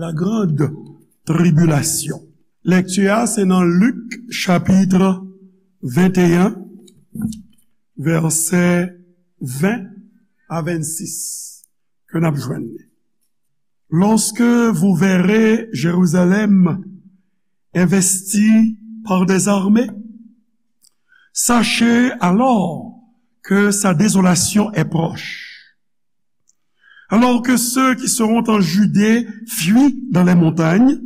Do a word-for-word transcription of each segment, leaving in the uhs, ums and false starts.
La grande tribulation. Lèkti a se nan Lik chapit venteyen, vèsè ven a vennsis, ke n ap jwenn li. Lorsque vous verrez Jérusalem investie par des armées, sachez alors que sa désolation est proche. Alors que ceux qui seront en Judée fuient dans les montagnes,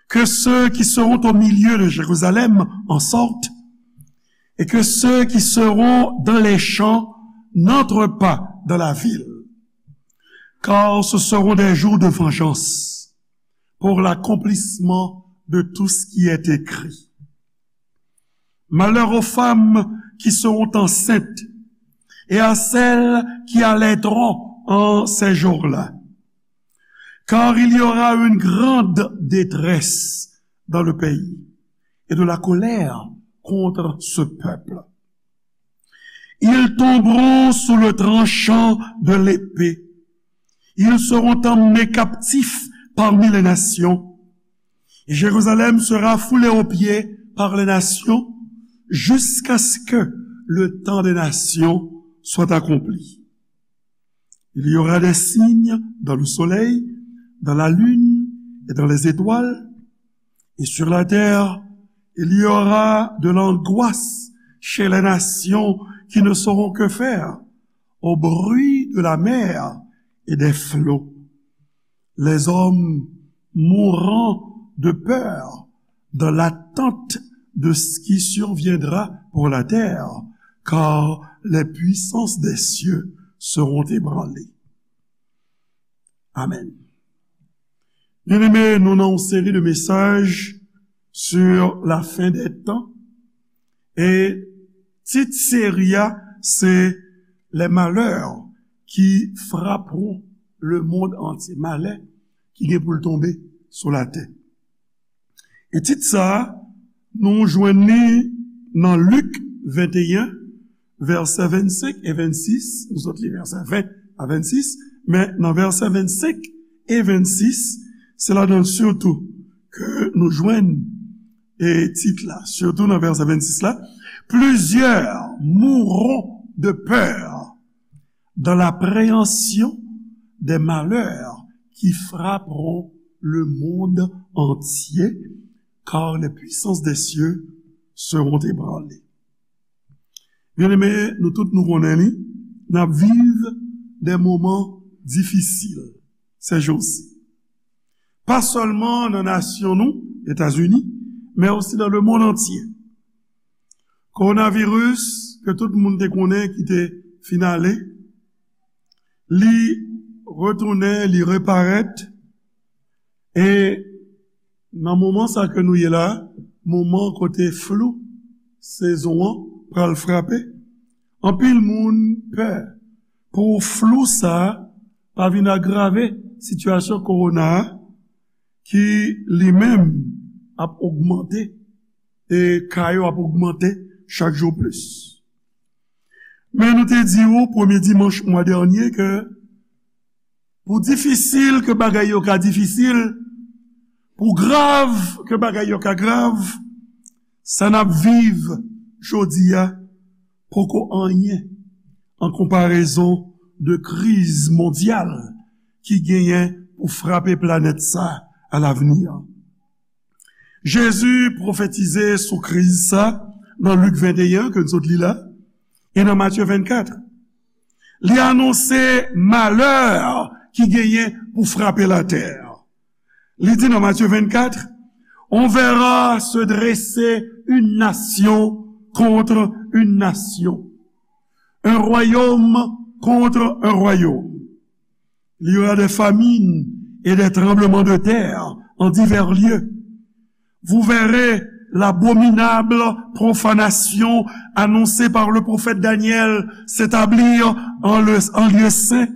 que ceux qui seront au milieu de Jérusalem en sortent, et que ceux qui seront dans les champs n'entrent pas dans la ville, car ce seront des jours de vengeance pour l'accomplissement de tout ce qui est écrit. Malheur aux femmes qui seront enceintes et à celles qui allaiteront en ces jours-là. Car il y aura une grande détresse dans le pays et de la colère contre ce peuple. Ils tomberont sous le tranchant de l'épée. Ils seront emmenés captifs parmi les nations. Et Jérusalem sera foulée aux pieds par les nations jusqu'à ce que le temps des nations soit accompli. Il y aura des signes dans le soleil, dans la lune et dans les étoiles, et sur la terre, il y aura de l'angoisse chez les nations qui ne sauront que faire au bruit de la mer et des flots. Les hommes mourront de peur dans l'attente de ce qui surviendra pour la terre, car les puissances des cieux seront ébranlées. Amen. Byeneme, nou nan yon seri de mesaj sur la fin des temps. E tit seri a, se Les malheurs qui frapperont le monde entier. Malè ki gen pou l tonbe sou latè. E tit sa a, nou jwenn li nan Lik venteyen, vèsè vennsenk e vennsis. Nou sot li vèsè ven a vennsis, men nan vèsè vennsenk e vennsis, se ladan l sitou ke nou jwenn, e, tit la, sitou nan vèsè vennsis la, Plusieurs mourront de peur dans l'appréhension des malheurs qui frapperont le monde entier, car les puissances des cieux seront ébranlées. Byeneme, nou tout nou konnen li, n ap viv de moman difisil ces jours-ci. Pa sèlman nan nasyon nou, Etazini, men osi dans le monde entier. Kowonaviris, ke tout moun te konnen ki te fin ale, li retounen, li reparèt, e nan moman sa ke nou ye la, moman kote flou sezon an pral frape, anpil moun pè pou flou sa pa vin agrave sitiyasyon kowona a, ki li menm ap ogmante, e ka yo ap ogmante chak jou plis. Men nou te di w premye dimanch mwa dènye ke pou difisil ke bagay yo ka difisil, pou grav ke bagay yo ka grav, sa n ap viv jodi a poko anyen an konparezon de kriz mondyal ki genyen pou frape planèt sa a lavni an. Jezi pwofetize sou kriz sa nan Lik venteyen ke n sot li la, e nan Matye vennkat. Li anonse malè ki genyen pou frape latè. Li di nan Matye vennkat, On verra se dresser une nation contre une nation, un royaume contre un royaume. Il y aura des famines et des tremblements de terre en divers lieux. Vous verrez l'abominable profanation annoncée par le prophète Daniel s'établir en, le, en lieu saint.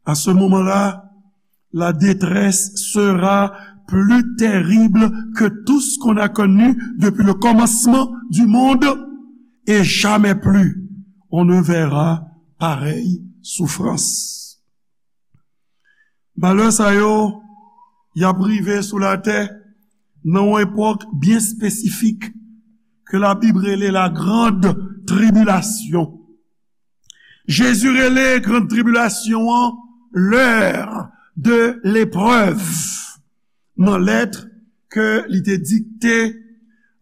À ce moment-là, la détresse sera plus terrible que tout ce qu'on a connu depuis le commencement du monde, et jamais plus on ne verra pareille souffrance. Malè sa yo y ap rive sou latè nan yon epòk byen espesifik ke Labib rele la grande tribulation. Jezi rele grande tribulation an l'heure de l'épreuve. Nan lèt ke li te dikte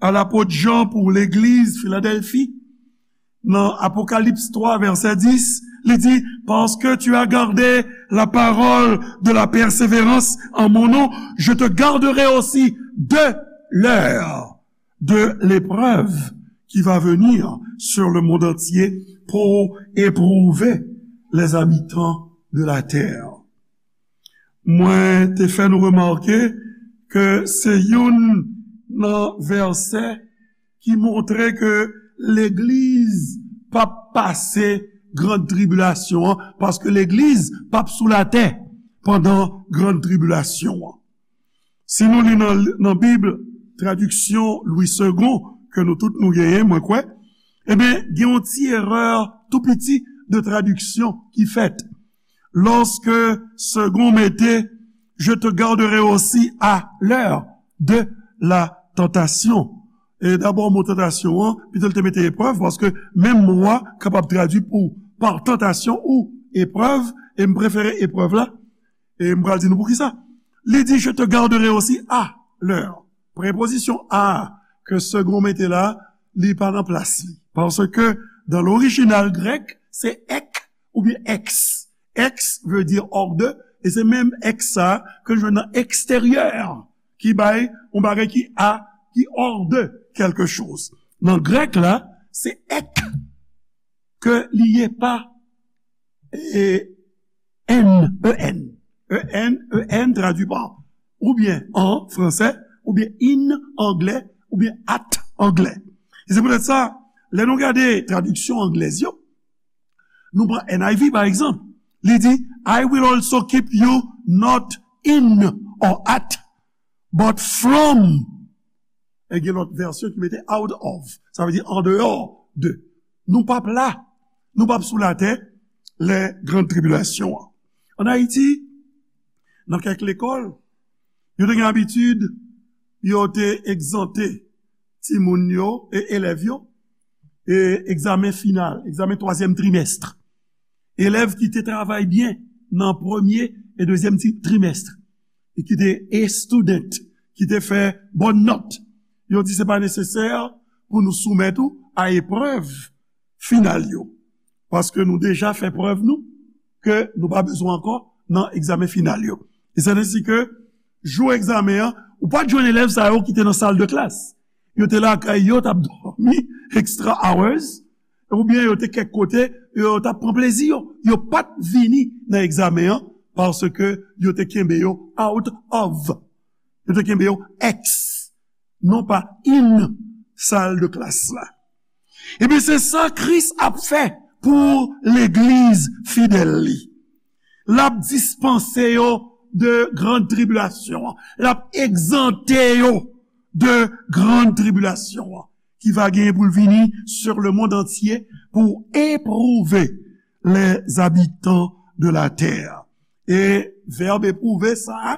a lapot Jan pou legliz Filadèlfi, nan Apokalips twa, vèsè dis, li di, Parce que tu as gardé la parole de la persévérance en mon nom, je te garderai aussi de l'heure de l'épreuve qui va venir sur le monde entier pour éprouver les habitants de la terre. Mwen te fè nou remake ke se youn nan vèsè ki montre ke legliz p ap pase grann tribilasyon an, paske legliz p ap sou latè pandan grann tribilasyon an. Si nou li nan, nan Bib, tradiksyon Louis Segond, ke nou tout nou genyen, mwen kwè, ebyen, gen yon ti erè tou piti de tradiksyon ki fèt. Lorsque Segond mete, Je te garderai aussi à l'heure de la tentation. E dabò, mo tantasyon an, pito l te mete eprèv, paske menm mo a kapab tradui pou pa tantasyon ou eprèv, e m prefere eprèv la, e m pral di nou poukisa. Li di, Je te garderai aussi à l'heure. Prepozisyon à ke Segond mete la, li pa nan plas li. Paske dan lorijinal grèk, se ek oubyen ex. Ex veut dire hors de, e se menm ex sa ke nou jwenn nan eksteryè, ki bay yon bagay ki a, ki hors de quelque chose. Nan grèk la, se ek ke li ye, pa e, en, en. En, en tradui pa oubyen an fransè, oubyen in anglè, oubyen at anglè. E se poutèt sa, lè nou gade tradiksyon anglèz yo, nou pran N I V pa egzanp, li di, I will also keep you not in or at, but from. E gen lòt vèsyon ki mete out of. Sa vle di andeyò de. Nou p ap la. Nou p ap sou latè lè grann tribilasyon an. Ann Ayiti, nan kèk lekòl, yo te gen abitid, yo te egzante timoun yo e elèv yo e egzamen final, egzamen twazyèm trimès. Elèv ki te travay byen nan premye e dezyèm ti-, trimès, e ki te A student, ki te fè bòn nòt, yo di se pa nesesè pou nou soumèt ou a eprèv final yo, paske nou deja fè prèv nou ke nou pa bezwen ankò nan egzamen final yo. E se ensi ke jou egzamen an, ou pa t jwenn elèv sa yo ki te nan sal de klas. Yo te lakay yo, t ap dòmi extra hours, oubyen yo te kèk kote, yo t ap pran plezi yo. Yo pa t vini nan egzamen an, paske yo te kenbe yo out of. Yo te kenbe yo ex, non pa in sal de klas la. Ebyen, se sa Kris ap fè pou legliz fidèl li. L ap dispanse yo de grann tribilasyon an. L ap egzante yo de grann tribilasyon an, ki va genyen pou l vini sur le monde entier pour éprouver les habitants de la terre. E vèb epwouve sa a,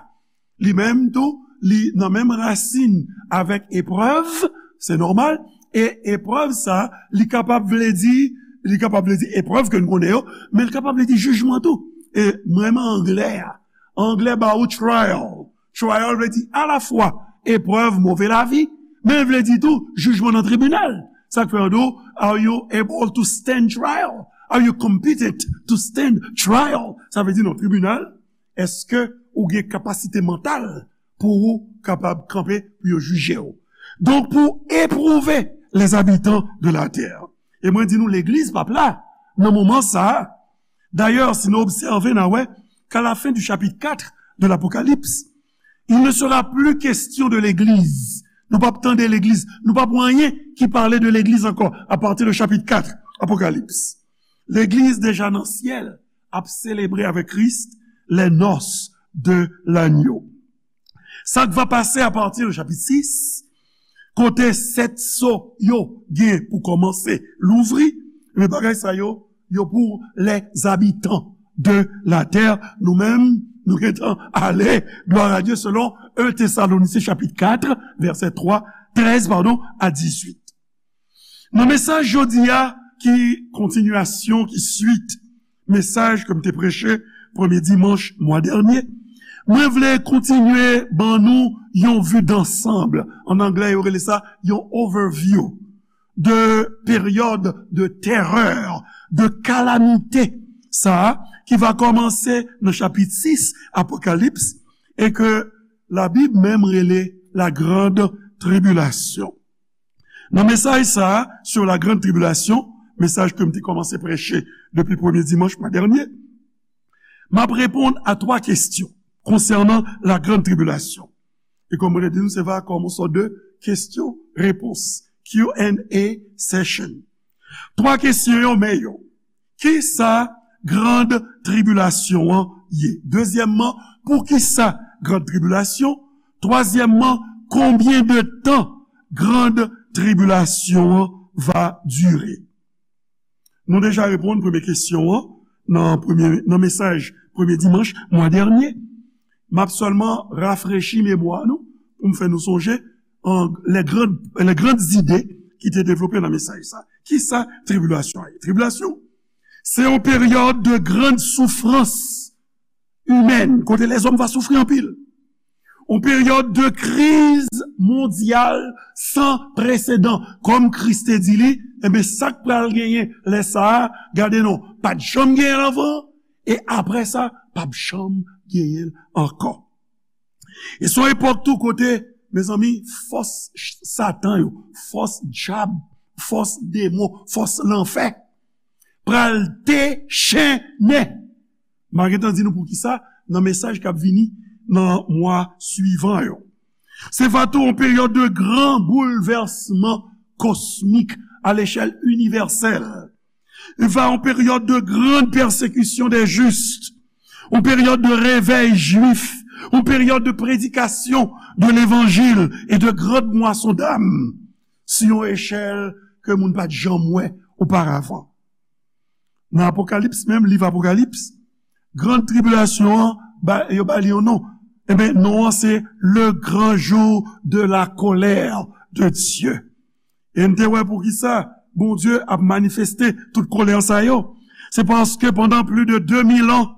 li menm tou, li nan menm rasin avèk eprèv, se nòmal, e eprèv sa, li kapab vle di, li kapab vle di eprèv ke n konnen yo, men li kapab vle di jijman tou. E m renmen anglè a. Anglè ba ou trial. Trial vle di alafwa eprèv move lavi, men l vle di tou jijman nan tribinal. Sa k fè yo di w, are you able to stand trial? Are you competent to stand trial? Sa vle di nan tribinal, èske ou gen kapasite mantal pou ou kapab kanpe pou yo jije w? Donk, pou epwouve les habitants de la terre. E mwen di nou, legliz p ap la nan moman sa a. Dayè, si nou obsève, n a wè k'a la fin du chapitre quatre de l'Apocalypse, il ne sera plus question de l'église. Nou p ap tande legliz. Nou p ap wè anyen ki pale de legliz ankò, apati de chapit kat Apokalips. Legliz deja nan syèl ap selebre avèk Kris les noces de l'agneau. Sa k va pase apati de chapit sis, kote sèt so yo gen pou kòmanse louvri, men bagay sa yo, yo pou les habitants de la terre. Nou menm, Nou gentan ale, glwa a Dye, selon en Tesalonisyen chapit kat, vèsè twa, trèz, padon, a dizuit. Nan mesaj jodi a, ki kontinyasyon, ki swit mesaj ke m te preche premye dimanch mwa dènye, mwen vle kontinye ban nou yon vi dansanm. An anglè, yo rele sa yon overview de peryòd de terè, de kalamite, sa a, ki va kòmanse nan chapit sis Apokalips, e ke Labib menm rele la grande tribulation. Nan mesaj sa a, sur la grande tribulation, mesaj ke m te kòmanse preche depi premye dimanch mwa dènye, m ap reponn a twa kesyon konsènan la grande tribulation. E kòm mwen te di nou, se va kòm yon sòt de kesyon repons, Q and A session. Twa kesyon yo, men yo. Kisa grande tribulation an ye? Dezyèmman, poukisa grande tribulation? Twazyèmman, konbyen de tan grande tribulation an va dire? Nou deja reponn premye kesyon an nan, premye, nan mesaj premye dimanch mwa dènye. M ap sèlman rafrechi memwa nou pou m fè nou sonje an, les grandes, les grandes idées ki te devlope nan mesaj sa. Kisa tribilasyon an ye? Tribilasyon, se yon peryòd de grande souffrance humaine, kote lèzòm va soufri anpil. Yon peryòd de kriz mondyal san presedan. Kòm Kris te di li, enben, sa k pral genyen lè sa a, gade non, pa t janm genyen l anvan, e apre sa, p ap janm genyen l ankò. E se yon epòk tou kote, mezanmi, fòs Satan yo, fòs dyab, fòs demon, fòs lanfè pral dechennen. M a gentan di nou poukisa nan mesaj k ap vini nan mwa swivan yo. Se va tou yon peryòd de gran boulvèsman kosmik a lechèl inivèsèl. Il va yon peryòd de grande persécution des justes, yon peryòd de réveil juif, yon peryòd de prédication de l'évangile et de grande moisson d'âme, sou yon echèl ke moun pa t janm wè oparavan. Nan Apokalips menm, liv Apokalips, gran tribilasyon an, ba, yo ba li yon non. Enben, non an se le grand jour de la colère de Dieu. E n te wè poukisa Bondye ap manifeste tout kolè sa yo. Se paske pandan plis de de mil an,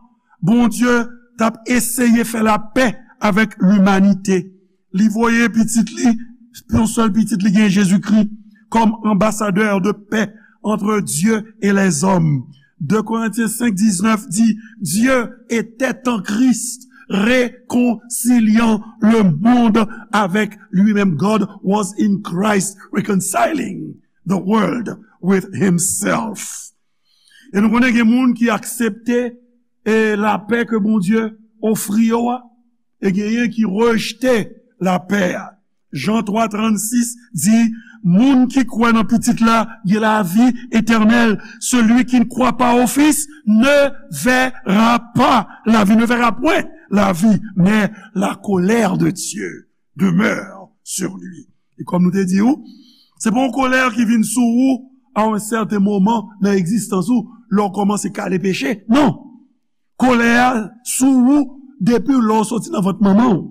Bondye t ap eseye fè lapè avèk limanite. Li voye pitit li, yon sèl pitit li gen, Jezikri, kòm anbasadè de pè entre Dieu et les hommes. Deux Corinthiens cinq dix-neuf dit, Dieu était en Christ, réconciliant le monde avec lui-même. God was in Christ, reconciling the world with himself. E nou konnen gen moun ki aksepte, e, lapè ke Bondye ofri yo a, e genyen ki rejte lapè a. Jan twa trannsis di, moun ki kwè nan Pitit la gen lavi etènèl. Celui qui ne croit pas au Fils ne verra pas la vie, ne verra point la vie, mais la colère de Dieu demeure sur lui. E kòm nou te di w, se pa yon kolè ki vin sou ou a yon sèten moman nan egzistans ou, lè w kòmanse kale peche. Non! Kolè a sou ou depi lè w soti nan vant manman w.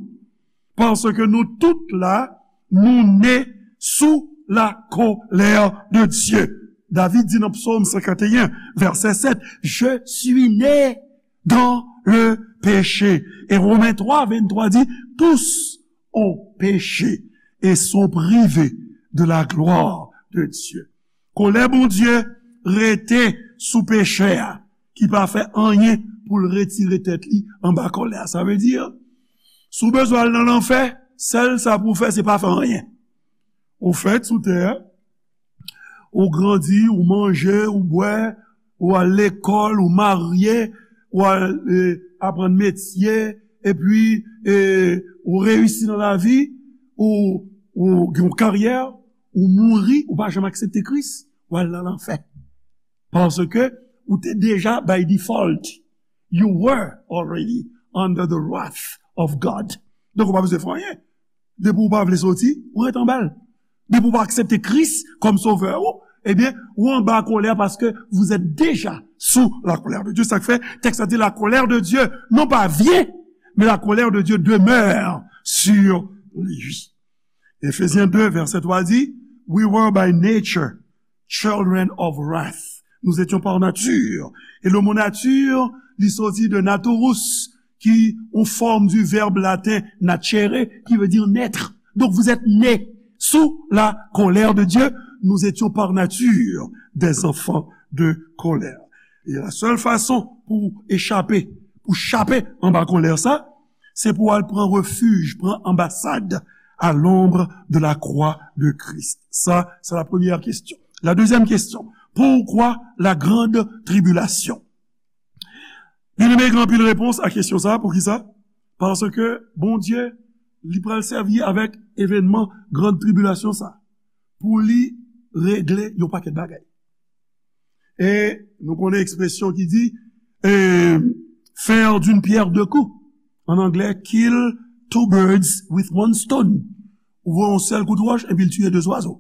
Paske nou tout la, nou ne sou la colère de Dieu. David di nan Psaume cinquante et un, verset sept, Je suis né dans le péché. Et Romains trois vingt-trois dit, tous ont péché et sont privés de la gloire de Dieu. Kolè Bondye rete sou pechè a, ki pa fè anyen pou l retire tèt li anba kolè a. Sa vle di, si w bezwen al nan lanfè, sèl sa pou w fè, se pa fè anyen. Ou fèt sou tè a, ou grandi, ou manje, ou bwè, ou al lekòl, ou marye, ou al, e, aprann metye, epi, e, ou reyisi nan lavi, ou, ou gen yon karyè, ou mouri, ou pa janm aksepte Kris, ou al nan lanfè. Paske ou te deja by default. You were already under the wrath of God. Donk, ou pa bezwen fè anyen. Depi ou pa vle soti, ou ret anba l. Depi ou pa aksepte Kris kòm sovè ou, ebyen, ou anba kolè paske vous êtes déjà sous la colère de Dieu. Sa k fè tèks la di la colère de Dieu, non pa vye, mais la colère de Dieu demeure sur lui. Éphésiens deux, verset trois dit, We were by nature children of wrath. Nous étions par nature. E le mo nature, li soti de naturus, ki yon fòm du verbe latin nacere, qui veut dire naître. Donc vous êtes nés sous la colère de Dieu. Nous étions par nature des enfants de colère. E la sèl fason pou echape, pou chape anba kolè sa, se pou al pran refij, pran anbasad à l'ombre de la croix de Christ. Ça, c'est la première question. La deuxième question, pourquoi la grande tribulation? Byeneme, gen anpil repons a kesyon sa. Poukisa? Paske Bondye, li pral sèvi avèk evènman gran tribilasyon sa pou li regle yon pakèt bagay. E nou konnen ekspresyon ki di, eh, faire d'une pierre deux coups. An anglè, kill two birds with one stone. Ou voye yon sèl kout wòch epi l tiye de zwazo.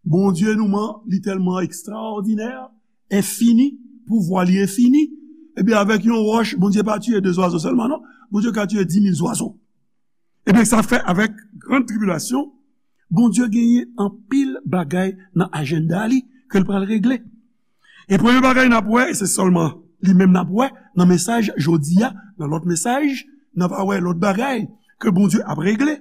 Bondye nou man, li tèlman ekstraòdinè, enfini, pouvwa li enfini. Epi avèk yon wòch, Bondye pa tiye de zwazo sèlman, non. Bondye ka tiye dis mil zwazo. Ebyen, sa fè avèk gran tribilasyon, Bondye genyen anpil bagay nan ajanda li ke l pral regle. E premye bagay n ap wè, e se sèlman li menm n ap wè nan mesaj jodi a, nan lòt mesaj, n ap wè lòt bagay ke Bondye ap regle.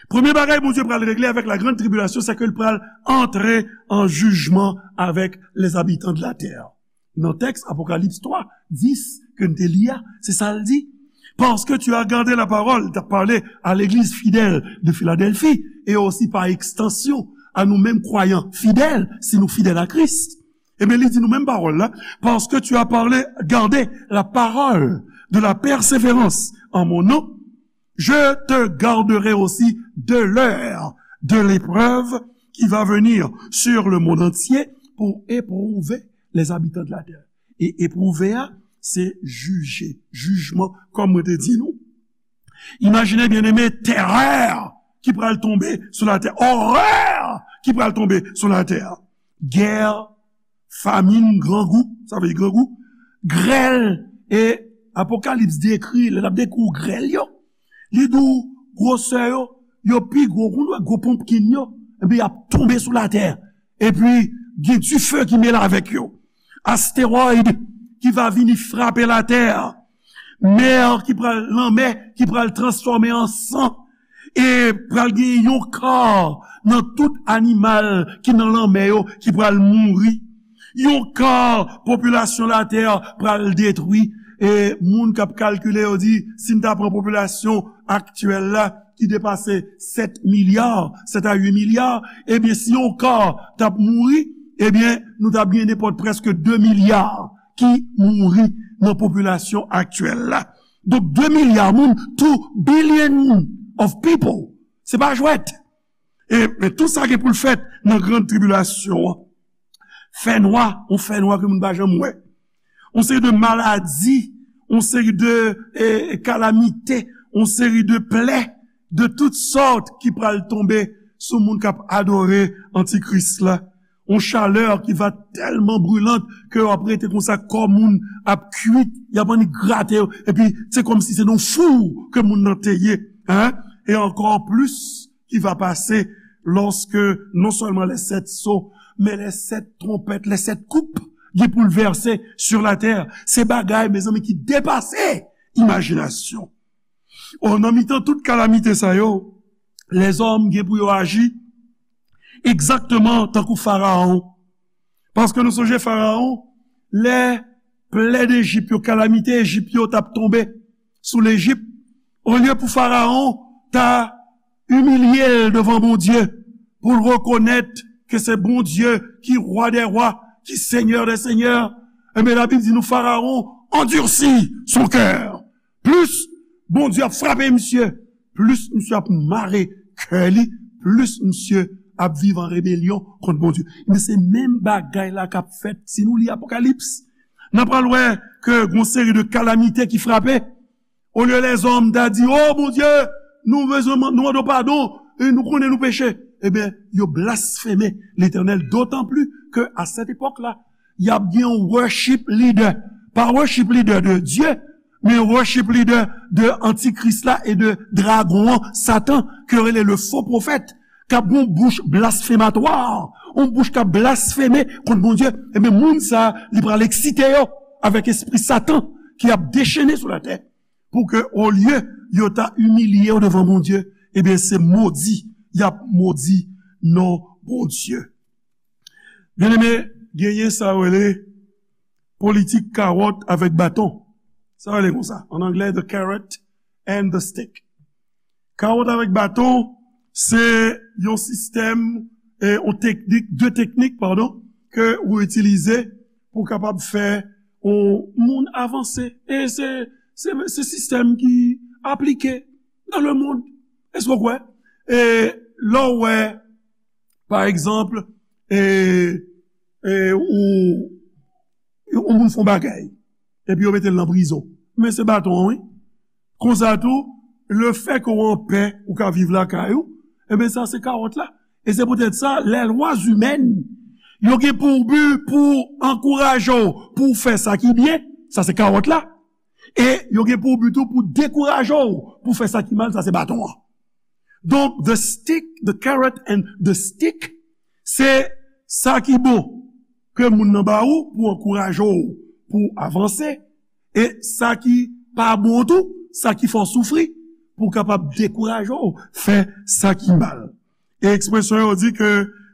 Premye bagay Bondye pral regle avèk la grande tribulation, c'est que l pral antre an jijman avèk les habitants de la terre. Nan tèks Apokalips twa, dis ke n te li a, se sa l di. Parce que tu as gardé la parole, l t ap pale a legliz fidèl de Philadelphie, e osi pa ekstansyon a nou menm kwayan fidèl, si nou fidèl a Kris. Ebyen, li di nou menm pawòl la, parce que tu as parlé, gardé la parole de la persévérance en mon nom, je te garderai aussi de l'heure de l'épreuve qui va venir sur le monde entier pour éprouver les habitants de la terre. E epwouve a, se jije, jijman, kòm mwen te di nou. Imajine, byeneme, terè ki pral tonbe sou latè, orè ki pral tonbe sou latè. Gè, famin, grangou, sa vle di grangou, grèl, e Apokalips dekri, lè l ap dekri w grèl yo, li di w gwosè yo, yo pi gwo, ou wè gwo ponpkin yo, epi y ap tonbe sou latè. Epi, gen dife ki mele avèk yo. Astewoid ki va vini frape latè. Mè ki pral, lanmè ki pral transfòme an san. E pral gen yon ka nan tout animal ki nan lanmè yo ki pral mouri. Yon ka popilasyon latè pral detwi. E moun k ap kalkile yo di, si n ta pran popilasyon aktyèl la, ki depase sèt milya, sèt a uit milya, ebyen, si yon ka t ap mouri, ebyen, nou t ap gen nenpòt prèske de milya ki mouri nan popilasyon aktyèl la. Donk, de milya moun, two billion of people. Se pa jwèt. E, men tou sa gen pou l fèt nan gran tribilasyon an. Fènwa, yon fènwa ke moun pa janm wè. Yon seri de maladi, yon seri de, eh, kalamite, yon seri de plè de tout sòt ki pral tonbe sou moun k ap adore antikris la. Yon chalè ki va tèlman brilant ke w ap rete konsa, kò moun ap kwit, y ap annik grate yo, epi se kòmsi se nan fou ke moun nan te ye, hein? E ankò plis, ki va pase lòske non sèlman les sept sceaux, men les sept trompettes, les sept coupes gen pou l vèse sur la terre. Se bagay, mezanmi, ki depase imajinasyon. O, nan mitan tout kalamite sa yo, lèzòm gen pou yo aji egzakteman tankou Farawon. Paske nou sonje Farawon, lè plè Ejip yo, kalamite Ejip yo t ap tonbe sou Lejip, olye pou Farawon ta imilye l devan Bondye, pou l rekonèt ke se Bondye ki Rwa dè rwa, ki Senyè dè senyè, ebyen, Labib di nou Farawon endurcit son cœur. Plis Bondye ap frape misye, plis misye ap mare kè li, plis misye ap viv an rebelyon kont Bondye. Men se menm bagay la k ap fèt si nou li Apokalips. N a pral wè ke gon seri de kalamite ki frape. Olye lèzòm ta di, "O Bondye, nou bezwen man-, nou mande w padon, e nou konnen nou peche." Ebyen, yo blasfeme Letènèl, dotan pli ke a sèt epòk la, y ap gen yon worship leader. Pa worship leader de Dye, Men worship leader de antikris la e de dragon an, Satan, ke yo rele le faux prophète, k ap gen yon bouch blasfematwa, yon bouch k ap blasfeme kont Bondye, ebyen, moun sa a, li pral eksite yo avèk espri Satan ki ap dechene sou latè, pou ke, olye yo ta imilye yo devan Bondye, ebyen, se modi y ap modi non Bondye. Byeneme, genyen sa yo rele politik kawòt avèk baton. Sa yo rele konsa, an anglè, the carrot and the stick. Kawòt avèk baton, se yon sistèm, eh, yon teknik, de teknik, padon, ke ou itilize pou kapab fè yon moun avanse. E se, se, se sistèm ki aplike dans le monde. Èske w kwè? E lè w wè, pa egzanp, e, e, ou, yon moun fè yon bagay, epi yo mete l nan prizon. Men se baton an, wi. Konsa tou, lefètke w anpè, ou ka viv lakay ou, ebyen, sa se kawòt la. E se poutèt sa, les lois humaines, yo gen pou bi pou ankouraje w pou w fè sa ki byen, sa se kawòt la. E yo gen pou bi tou pou dekouraje w pou w fè sa ki mal, sa se baton an. Donk, the stick, the carrot and the stick, se sa ki bon ke moun nan ba ou pou ankouraje w pou w avanse, e sa ki pa bon tou, sa ki fè w soufri, pou w kapab dekouraje w fè sa ki mal. E ekspresyon yo di ke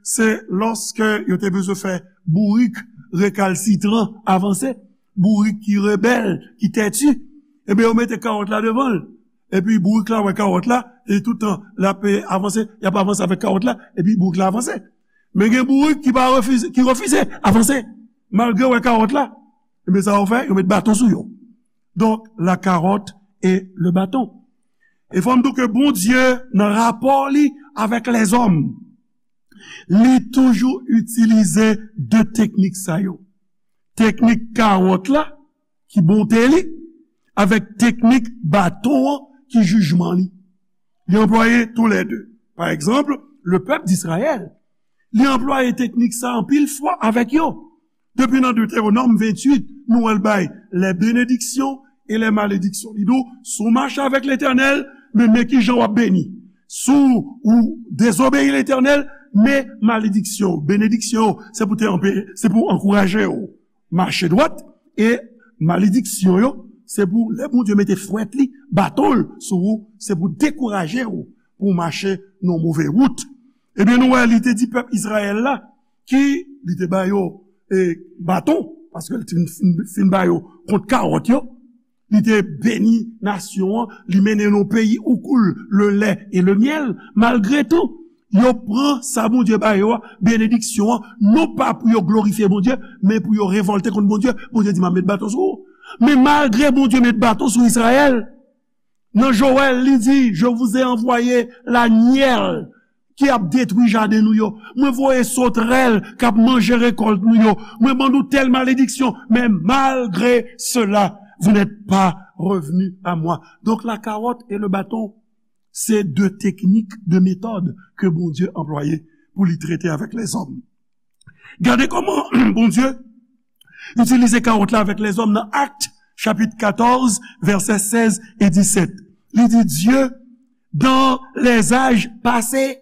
se lòske yo te bezwen fè bourik rekalsitran avanse, bourik ki rebèl, ki tèti, ebyen, yo mete kawòt la devan l. Epi bourik la wè kawòt la, e toutan l ap, e, avanse, y ap avanse avèk kawòt la, epi bourik la avanse. Men gen bourik ki pa refize, ki refize avanse, malgre yo wè kawòt la. Ebyen, sa yo fè, yo met baton sou yo. Donk, la carotte et le bâton. E fò m di w ke Bondye, nan rapò li avèk lèzòm, li toujou itilize de teknik sa yo. Teknik kawòt la, ki bonte li, avèk teknik baton an, ki jijman li. Li anplwaye toulède. Pa egzanp, le pèp d'Izrayèl, li anplwaye teknik sa anpil fwa avèk yo. Depi nan Detewonòm venntuit, nou wè l bay les bénédictions et les malédictions. Li di w, si w mache avèk Letènèl, men, men kijan w ap beni. Si w dezobeyi Letènèl, men malediksyon, benediksyon, se pou te anpe-, se pou ankouraje w mache dwat, e malediksyon yo, se pou lè Bondye mete fwèt li, baton l sou ou, se pou dekouraje w pou w mache nan move wout. Ebyen, nou wè, li te di pèp Izrayèl la, ki li te ba yo, e, baton, paske li te fin, fin, fin ba yo kont kawòt yo, li te beni nasyon an, li mennen yo nan yon peyi où coule le lait et le miel. Malgre tou, yo pran sa Bondye ba yo a, benediksyon an, non pa pou yo glorifye Bondye, men pou yo revòlte kont Bondye. Bondye di, "M ap met baton sou ou." Men malgre Bondye met baton sou Izrayèl, nan Jowèl, li di, "Je vous ai envoyé la nielle ki ap detwi jaden nou yo. Mwen voye sotrèl k ap manje rekòlt nou yo. Mwen ban nou tèl malediksyon. Men malgre sela, vous n'êtes pas revenus à moi." Donk, la carotte et le bâton, se de teknik, de metòd ke Bondye anplwaye pou li trete avèk lèzòm. Gade kòman Bondye itilize kawòt la avèk lèzòm nan Actes, chapitre quatorze, versets seize et dix-sept. Li di, Dieu, dans les âges passés,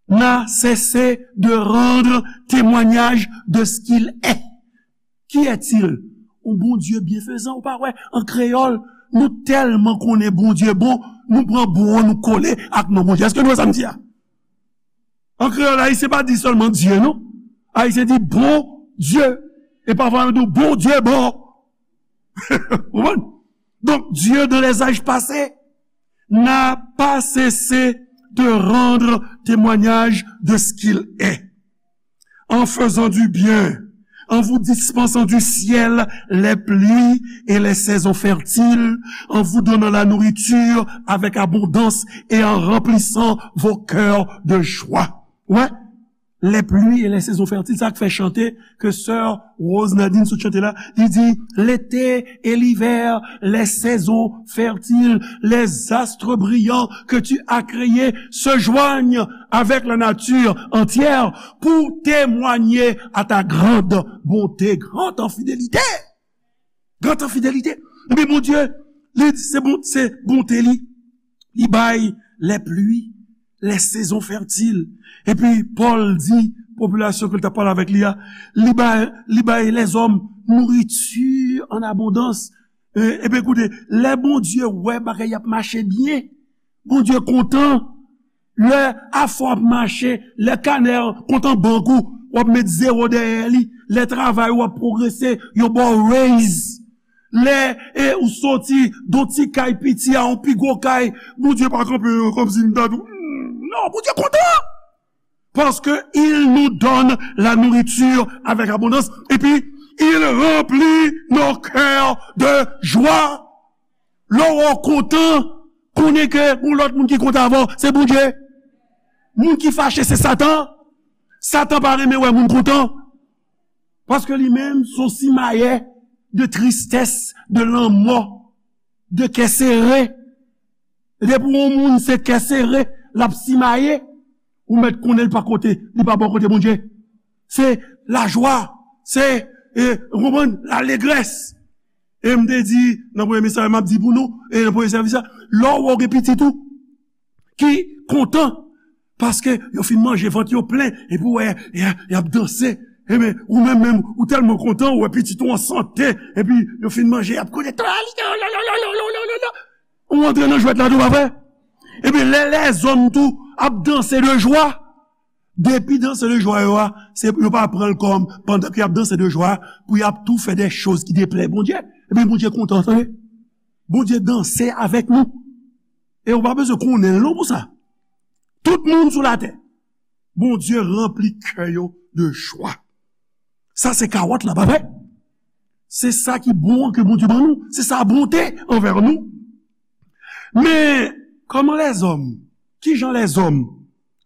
n'a cessé de rendre témoignage de ce qu'il est. Qui est-il? Yon Bondye byenfezan, ou pa wè, an kreyòl, nou tèlman konnen Bondye bon, nou pran bon an, nou kole ak non Bondye. Èske nou wè sa m di a? An kreyòl, Ayisyen pa di sèlman Dye, non. Ayisyen di bon Dye. E pafwa, yo di w, Bondye bon. Ou konprann? Donc, Dieu, dans les âges passés, n'a pas cessé de rendre témoignage de ce qu'il est, en faisant du bien, en vous dispensant du ciel les pluies et les saisons fertiles, en vous donnant la nourriture avec abondance et en remplissant vos cœurs de joie. Ouais, les pluies et les saisons fertiles, sa k fè chante ke sè Rose Nadine sot chante la, li di, l'été et l'hiver, les saisons fertiles, les astres brillants que tu as créés se joignent avec la nature entière pour témoigner à ta grande bonté, grande en fidélité. Grande en fidélité. Epi Bondye, li, se bon, se bonte li. Li bay lè pli, lè sezon fètil. Epi Pòl di popilasyon ke l t ap pale avèk li a, li bay, li bay lèzòm nouriti an abondans. E, epi koute, lè Bondye wè bagay ap mache byen, Bondye kontan. Lè afè w ap mache, lè kanè kontan bank ou, w ap met zewo dèyè li. Lè travay ou ap pwogrese, yo ba w raise. Lè e, ou soti de yon ti kay piti a yon pi gwo kay, Bondye pa kanpe kòmsi m ta di w, "Hmm, non, Bondye kontan." Parce que il nous donne la nourriture avec abondance. Et puis, il remplit nos cœurs de joie. Lè w kontan, konnen ke yon lòt moun ki kontan avè w, se Bondye. Moun ki fache, se Satan. Satan pa renmen wè moun kontan. Paske li menm, se yon simayè de tristès, de lanmò, de kè sere. Depi yon moun se kè sere, l ap simaye, ou mèt konnen l pa kote, li pa bò kote Bondye. Se lajwa, se, e, ou konprann, lalegrès. E m te di, nan premye mesaj, m ap di pou nou, e nan premye sèvis la, lè w wè w gen pitit ou ki kontan, paske yo fin manje, vant yo plen, epi w wè, y a, y ap danse. Ebyen, ou menm, menm, ou tèlman kontan, ou wè pitit ou an sante, epi yo fin manje, y ap konnen, ou antre nan jwèt la tou, pa vre? Ebyen, lè lèzòm tou ap danse de jwa, depi danse de jwa yo a, se, yo pa pran l kòm, pandan ke y ap danse de jwa, pou y ap tou fè de choz ki deplè Bondye. Ebyen, Bondye kontan, tande. Bondye danse avèk nou. E ou pa bezwen konnen l non pou sa. Tout moun sou latè, Bondye ranpli kè yo de jwa. Sa se kawòt la, pa vre? Se sa ki bon an ke Bondye ban nou. Se sa bonte anvè nou. Men, kòman lèzòm, kijan lèzòm,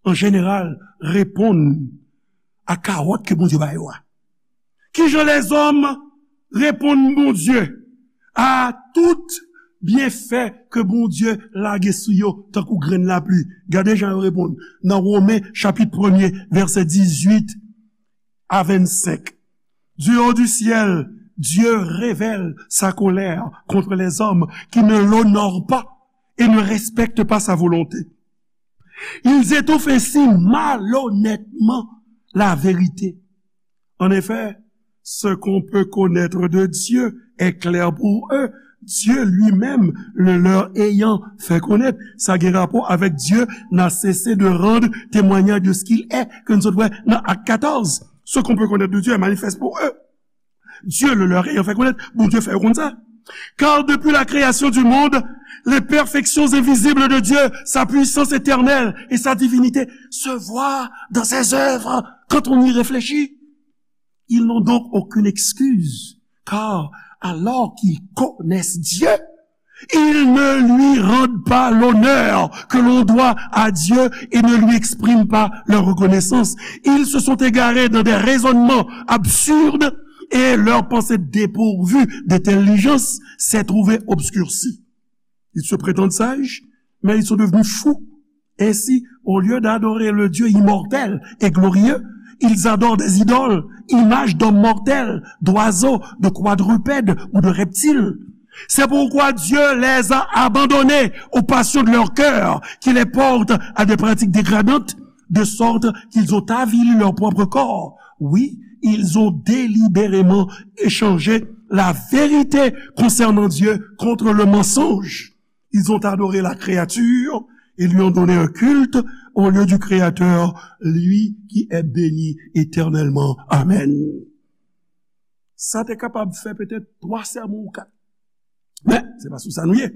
an jeneral, reponn a kawòt ke Bondye ba yo a? Kijan lèzòm reponn Bondye a tout byenfè ke Bondye lage sou yo tankou grenn lapli? Gade jan yo reponn nan Women chapit premye, vèsè dizuit a vennsenk. Du haut du ciel, Dieu révèle sa colère contre les hommes qui ne l'honorent pas et ne respectent pas sa volonté. Ils étouffent ainsi malhonnêtement la vérité. En effet, ce qu'on peut connaître de Dieu est clair pour eux, Dieu lui-même le leur ayant fait connaître. Sa gen rapò avèk Dieu n'a cessé de rendre témoignage de ce qu'il est, ke n sot wè nan Ak katòz. Ce qu'on peut connaître de Dieu est manifeste pour eux. Dieu le leur ayant fait connaître, Bondye fè yo konn sa. Car depuis la création du monde, les perfections invisibles de Dieu, sa puissance éternelle et sa divinité se voient dans ses œuvres quand on y réfléchit. Ils n'ont donc aucune excuse, car alors qu'ils connaissent Dieu, ils ne lui rendent pas l'honneur que l'on doit à Dieu et ne lui expriment pas leur reconnaissance. Ils se sont égarés dans des raisonnements absurdes et leur pensée dépourvue d'intelligence s'est trouvée obscurcie. Ils se prétendent sages, mais ils sont devenus fous. Ainsi, au lieu d'adorer le Dieu immortel et glorieux, ils adorent des idoles, images d'hommes mortels, d'oiseaux, de quadrupèdes ou de reptiles. C'est pourquoi Dieu les a abandonnés aux passions de leur cœur, qui les portent à des pratiques dégradantes, de sorte qu'ils ont avili leur propre corps. Oui, ils ont délibérément échangé la vérité concernant Dieu contre le mensonge. Ils ont adoré la créature et lui ont donné un culte au lieu du Créateur, lui qui est béni éternellement. Amen. Sa te kapab fè petèt twa sèmon ou kat. Men, se pa sou sa nou ye.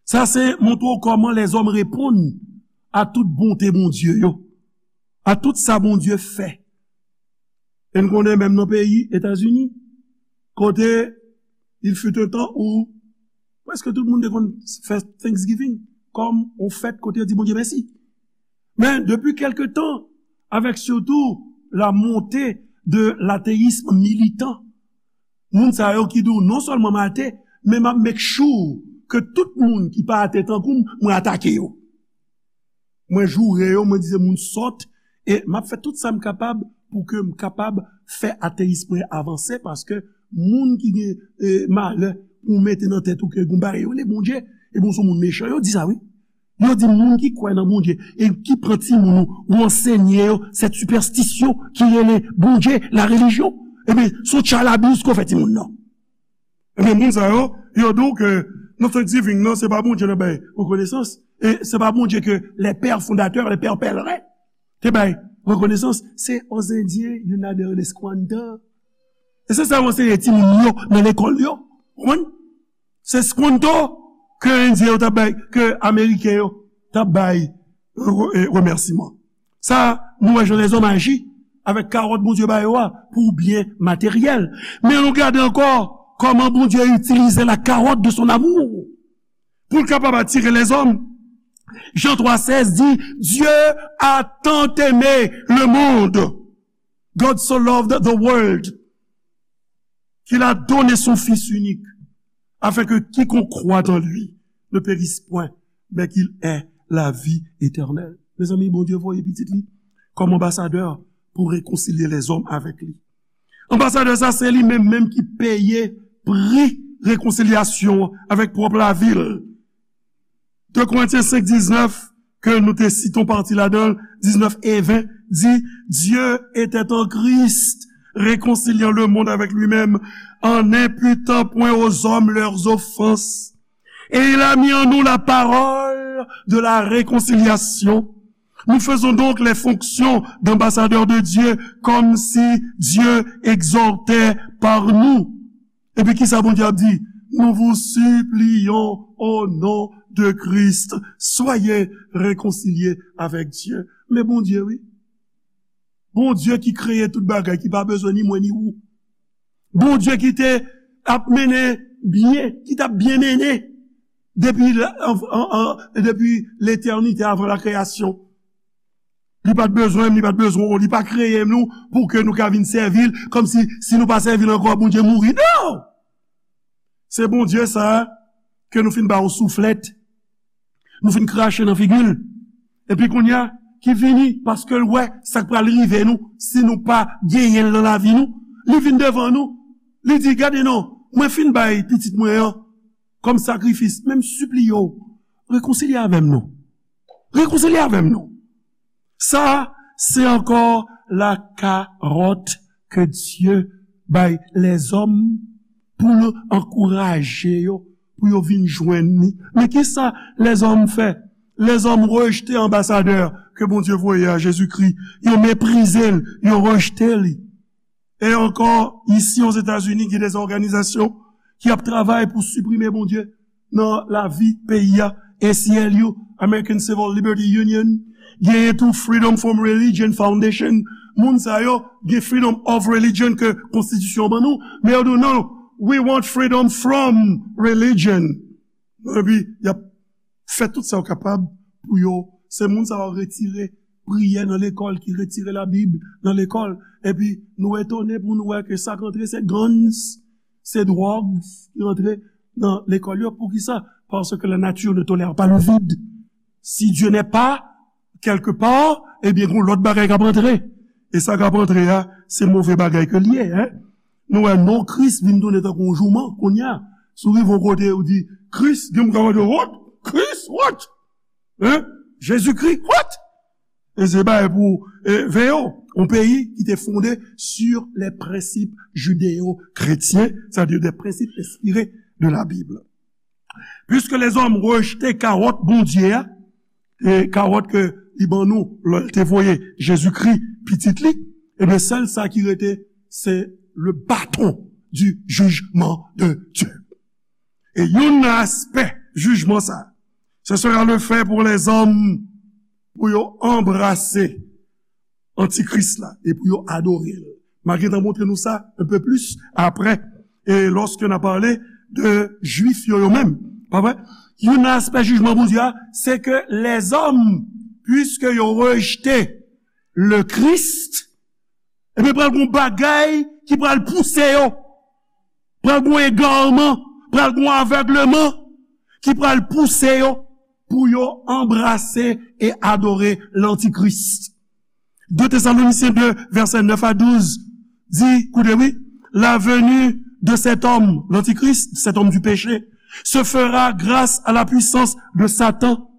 Sa se montre w kòman lèzòm reponn a tout bonte Bondye yo, a tout sa Bondye fè. E n konnen menm nan peyi Etazini, kote il fut un temps où prèske tout moun te konn fè Thanksgiving kòm yon fèt kote yo di Bondye mèsi. Men depi kèlke tan, avec surtout la montée de l'athéisme militant, moun sa yo ki di w non sèlman m ate, men m ap make sure ke tout moun ki pa ate tankou m, mwen atake yo. Mwen joure yo, mwen di se moun sòt, e m ap fè tout sa m kapab pou ke m kapab fè ateyis mwen avanse, paske moun ki gen, e, malè ou mete nan tèt ou ke gon bagay yo rele Bondye, ebyen, se moun mechan yo di sa, wi. Yo di moun ki kwè nan Bondye e ki pran timoun ou, ou ansenye yo cette superstition ki rele Bondye, la religion. Ebyen, se yon tchalabous ke w fè timoun nan. Ebyen, moun sa yo, yo di w ke nan Thanksgiving nan, se pa Bondye n ap bay rekonesans, e se pa Bondye ke les pères fondateurs, les pères pèlerins te bay rekonesans, se aux Indiens, y en a de les Squatters. E se sa yo anseye timoun yo nan lekòl yo. Konprann? Se squanto ke Endyen yo t ap bay, ke Ameriken yo t ap bay re- e remèsiman. Sa, nou wè jan lèzòm aji avèk kawòt Bondye ba yo a pou byen materyèl. Men nou gade ankò kòman Bondye itilize la carotte de son amour pou l kapab atire lèzòm. Jan twa sèz di, Dieu a tant aimé le monde, God so loved the world, qu'il a donné son Fils unique, afin que quiconque croit en lui ne périsse point, mais qu'il ait la vie éternelle. Mezanmi, Bondye voye pitit li kòm anbasadè pou rekonsilye lèzòm avèk li. Anbasadè sa, se li menm menm ki peye pri rekonsilyasyon an avèk pwòp lavi l. De Korentyen senk diznèf, ke nou te site yon pati ladan l, diznèf e ven, di, Dieu était en Christ, réconciliant le monde avec lui-même, en n'imputant point aux hommes leurs offenses. Et il a mis en nous la parole de la réconciliation. Nous faisons donc les fonctions d'ambassadeurs de Dieu, comme si Dieu exhortait par nous. Epi kisa Bondye ap di? Nous vous supplions au nom de Christ, soyez réconciliés avec Dieu. Men Bondye, wi. Bondye ki kreye tout bagay, ki pa bezwen ni mwen ni ou. Bondye ki te ap mennen byen, ki t ap byen mennen depi, la- an- an- an- depi letènite, avan la kreyasyon. Li pa t bezwen m, li pa t bezwen w, li pa kreye nou pou ke nou ka vin sèvi l, kòmsi si nou pa sèvi l ankò, Bondye mouri. Non! Se Bondye sa a ke nou fin ba yon souflèt, nou fin krache nan figi l. Epi kounye a, ki vini, paske l wè sa k pral rive nou si nou pa genyen l nan lavi nou. Li vin devan nou, li di, Gade non, mwen fin bay pitit mwen an kòm sakrifis, men m sipliye w, rekonsilye avè m non. Rekonsilye avè m non. Sa, se ankò la carotte ke Dye bay lèzòm pou l ankouraje yo, pou yo vin jwenn li. Men kisa lèzòm fè? Lèzòm rejte anbasadè ke Bondye voye a, Jezikri. Yo meprize l, yo rejte li. E ankò, isi Ozetazini, gen de òganizasyon ki ap travay pou siprime Bondye nan lavi peyi a. A C L U, American Civil Liberty Union, genyen tou Freedom from Religion Foundation. Moun sa yo gen freedom of religion ke konstitisyon ban nou, men yo di w, non, we want freedom from religion. Epi, y ap fè tout sa yo kapab pou yo, se moun sa yo retire priyè nan lekòl, ki retire Labib nan lekòl. Epi, nou etone pou nou wè ke sa k antre, se guns, se dwòg ki antre nan lekòl yo. Poukisa? Parce que la nature ne tolère pas le vide. Si Dieu n'est pas quelque part, ebyen, gon lòt bagay k ap antre. E sa k ap antre a, se move bagay ke l ye, en. Nou wè non Kris vin tounen tankou yon jouman, kounye a. Si w rive yon kote, ou di, Kris, gen moun k ap mande, what? Kris, what? Hein? Jezikri, what? E se bagay pou, e, veye w. Yon peyi ki te fonde sur les principes judéo-chrétiens, c'est-à-dire des principes inspirés de la Bible. Puiske lèzòm rejte kawòt Bondye a, e kawòt ke li ban nou, lè l te voye Jezikri, pitit li, ebyen, sèl sa ki rete, se le bâton du jugement de Dieu. E youn nan aspè jijman sa, ce sera le fait pour les hommes, pou yo anbrase antikris la e pou yo adore l. M a gentan montre nou sa un peu plus après, e lòske n a pale de Jwif yo, yo menm, pa vre? Youn nan aspè jijman Bondye a, se ke lèzòm, puiske yo rejte le Christ, ebyen, pral gon bagay ki pral pouse yo, pral gon egarman, pral gon avègleman ki pral pouse yo pou yo anbrase e adore lantikris. De Thessaloniciens deux, versets neuf à douze, di, koute wi, la venue de cet homme, l'Antichrist, cet homme du péché, se fera grâce à la puissance de Satan,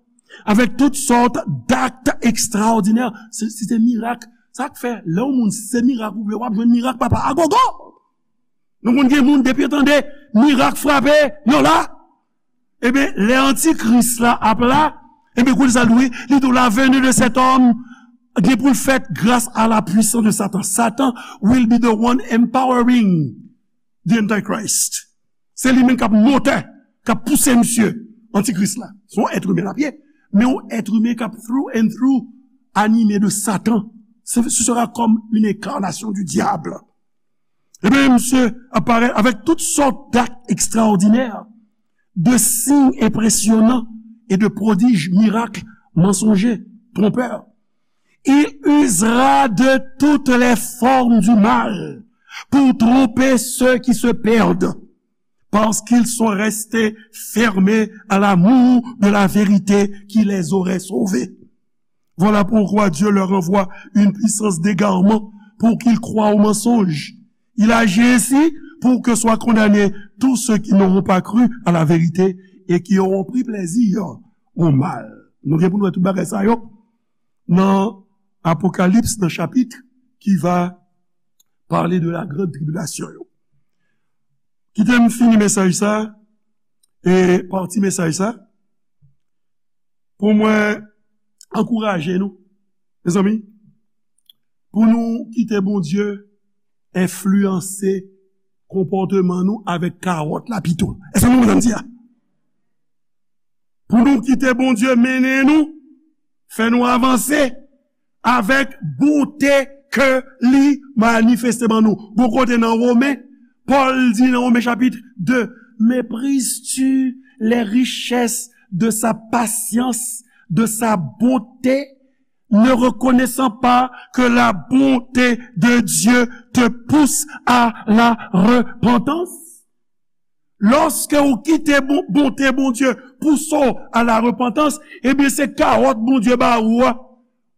avec toutes sortes d'actes extraordinaires. Se, se te mirak. Sa k fè, lè yon moun se mirak ou vle, w ap jwenn mirak papa a gogo. Nou konn gen moun depi yo tande mirak frape, yo la. Ebyen, lè antikris la ap la, ebyen, kounye sa l di, li di la venue de cet homme gen pou l fèt grâce à la puissance de Satan. Satan will be the one empowering the Antichrist. Se li menm k ap motè, k ap pouse misye, antikris la. Se yon èt imen l ap ye, men yon èt imen k ap through and through anime de Satan. Ce, ce sera comme une incarnation du diable. Ebyen, misye ap parèt avec toutes sortes d'actes extraordinaires, de signes impressionnants et de prodiges, miracles mensongers, trompeurs. Il usera de toutes les formes du mal pour tromper ceux qui se perdent, parce qu'ils sont restés fermés à l'amour de la vérité qui les aurait sauvés. Voilà pourquoi Dieu leur envoie une puissance d'égarement pour qu'ils croient au mensonge. Il agit ainsi pour que soient condamnés tous ceux qui n'auront pas cru à la vérité et qui auront pris plaisir au mal. Nou gen pou nou wè tout bagay sa yo nan Apokalips, nan chapit ki va pale de la grande tribulation yo. Kite m fini mesaj sa, e pati mesaj sa, pou mwen ankouraje nou, mezanmi, pou nou kite Bondye enfliyanse konpòteman nou avèk kawòt la pito. Èske nou konprann sa m di a? Pou nou kite Bondye mennen nou, fè nou avanse avèk bonte ke li manifeste ban nou. Gon kote nan Women, Pòl di nan Women chapit de, méprisses-tu les richesses de sa patience, de sa bonté, ne reconnaissant pas que la bonté de Dieu te pousse à la repentance? Lòske ou kite bon, bonte Bondye pouse w a la repantans, ebyen se kawòt Bondye ba ou a.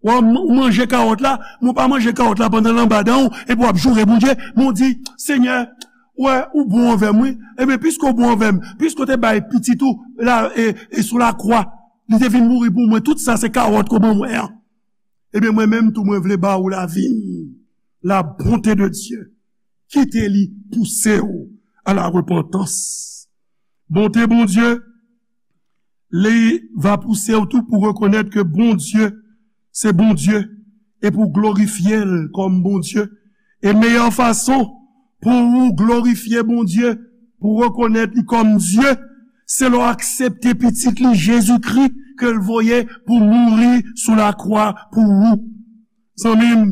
Ou a, ou manje kawòt la, men ou pa manje kawòt la pandan l anba dan w, epi w ap joure Bondye, men w di, Senyè, wè, ou bon anvè m, wi. Ebyen, piske w bon anvè m, piske w te bay pitit ou la, e, e sou lakwa, li te vin mouri pou mwen, tout sa se kawòt ke w ban mwen an. Ebyen, mwen menm tou, mwen vle ba ou lavi m, la bonté de Dieu. Kite li pouse w a la repantans. Bonte Bondye, li va pouse w tou pou rekonèt ke Bondye se Bondye e pou glorifye l kòm Bondye. E meyè fason pou ou glorifye Bondye, pou rekonèt li kòm Dye, se lè w aksepte Pitit li, Jezikri, ke l voye pou mouri sou lakwa pou ou. Zanmi m,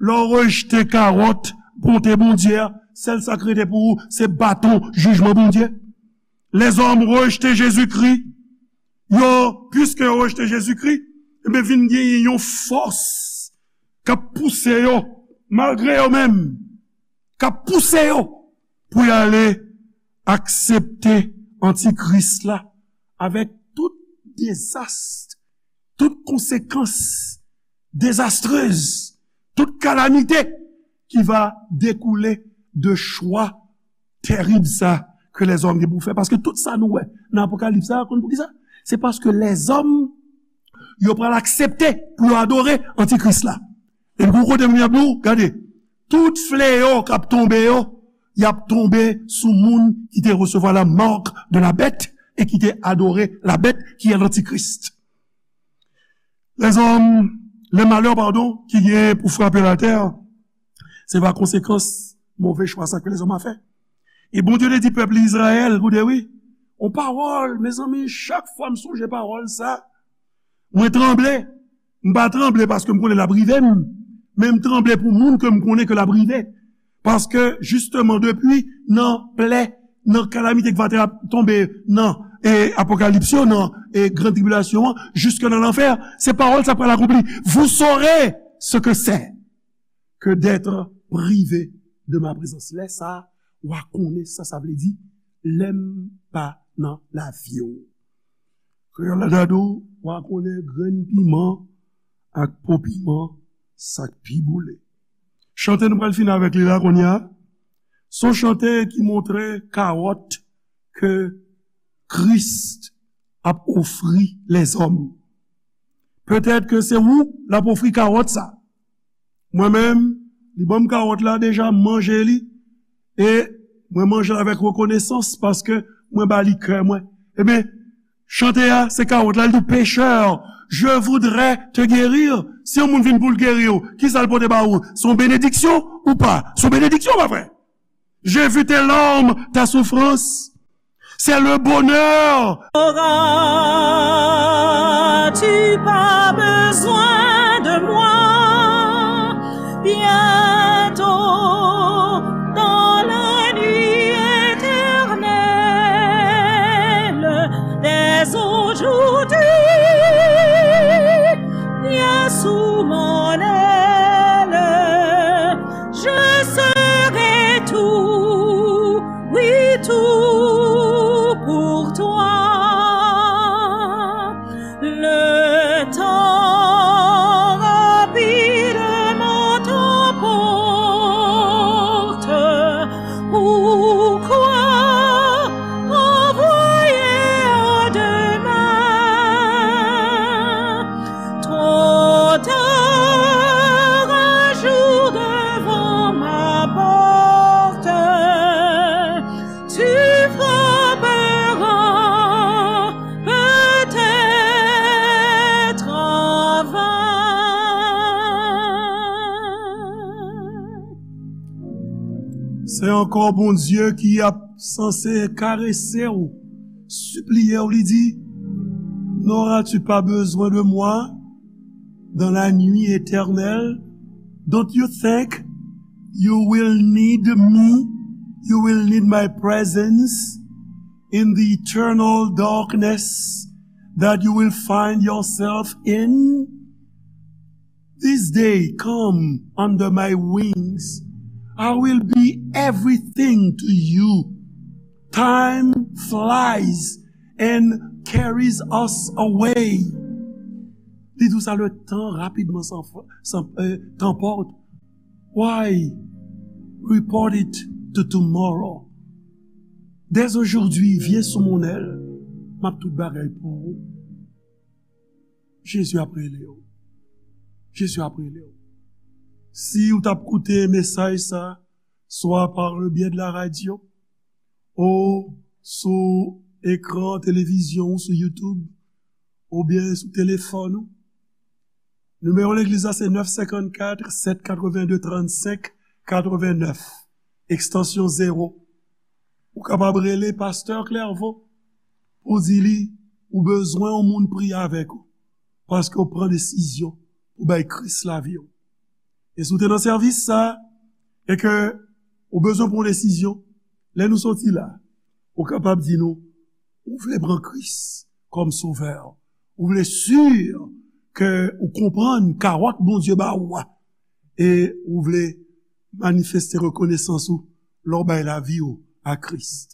lè w rejte kawòt bonte Bondye a, sèl sa k rete pou ou, se baton jijman Bondye. Lèzòm rejte Jezikri, yo, piske yo rejte Jezikri, ebyen, vin genyen yon fòs k ap pouse yo, malgre yo menm, k ap pouse yo pou y ale aksepte antikris la avèk tout dezas, tout konsekans dezastrez, tout kalamite ki va dekoule de chwa terib sa ke lèzòm gen pou fè. Paske tout sa nou wè nan Apokalips sa, konn poukisa? Se paske lèzòm, yo pral aksepte pou yo adore antikris la. E pou kote moun y ap di w, gade, tout fleyo k ap tonbe yo, y ap tonbe sou moun ki te resevwa la marque de la bête e ki te adore la bête qui est l'antichrist. Lèzòm, lè malè, padon, ki gen pou frape latè, se pa konsekans move chwa sa ke lèzòm a fè. E Bondye te di pèp li Izrayèl, koute wi, on pawòl, mezanmi, chak fwa m sonje pawòl sa, mwen tranble. M pa tranble paske m konnen l ap rive m, men m tranble pou moun ke m konnen ke l ap rive. Paske, jisteman, depi nan plè, nan kalamite ki va te ap tonbe nan, e, Apokalips yo, nan, e, gran tribilasyon an, jiske nan lanfè, se pawòl sa pral akonpli. Vous saurez ce que c'est que d'être privé de ma présence. Lè sa, w a konnen sa sa vle di, lè m pa nan lavi w. Kreyòl la ta di w, w a konnen grenn piman ak po piman, sa k pi boule. Chante nou pral fini avèk li la kounye a. Se yon chante ki montre kawòt ke Kris ap ofri lèzòm. Petèt ke se ou l ap ofri kawòt sa. Mwen menm, li ban m kawòt la deja, m manje li, e mwen manje l avèk rekonesans paske mwen ba li kè mwen. Ebyen, chante a, se kawòt la, li di w, pécheur, je voudrais te guérir. Si yon moun vin pou l geri w, kisa l pote ba ou? Se yon benediksyon ou pa? Se yon benediksyon, pa vre? J'ai vu tes larmes, ta souffrance. C'est le bonheur. N'auras-tu pas besoin de moi? Bientôt, dans la nuit éternelle, dès aujourd'hui, viens sous mon aile. Je serai tout, oui, tout pour toi. Le temps rapidement t'emporte. Pourquoi envoyer à demain? Trop tard, un jour devant ma porte, tu frapperas peut-être en vain. Se ankò Bondye ki ap sanse karese w, sipliye w, li di, N'auras-tu pas besoin de moi dans la nuit éternelle? Don't you think you will need me? You will need my presence in the eternal darkness that you will find yourself in? This day come under my wings. I will be everything to you. Time flies and carries us away. Li di w sa, le temps rapidement s'en-, s'en-, euh, t'emporte. Why report it to tomorrow? Dès aujourd'hui, viens sous mon aile. M ap tout bagay pou ou. Jezi ap rele w. Jezi ap rele w. Si w t ap koute mesaj sa, swa par le biais de la radio, ou sou ekran televizyon ou sou YouTube, oubyen sou telefòn ou, nimewo legliz la se nèf senkannkat, sèt katrevenn de, trannsenk katrevenn nèf, ekstansyon zewo. Ou kapab rele pastè Clairvaux pou di li ou bezwen yon moun priye avèk ou, paske w pran desizyon pou bay Kris lavi w. E si w te nan sèvis sa, e ke ou bezwen pran yon desizyon, lè nou soti la, ou kapab di nou, ou vle pran Kris kòm sovè, ou vle si ke ou konprann kawòt Bondye ba ou a, e ou vle manifeste rekonesans ou lè w bay lavi w a Kris.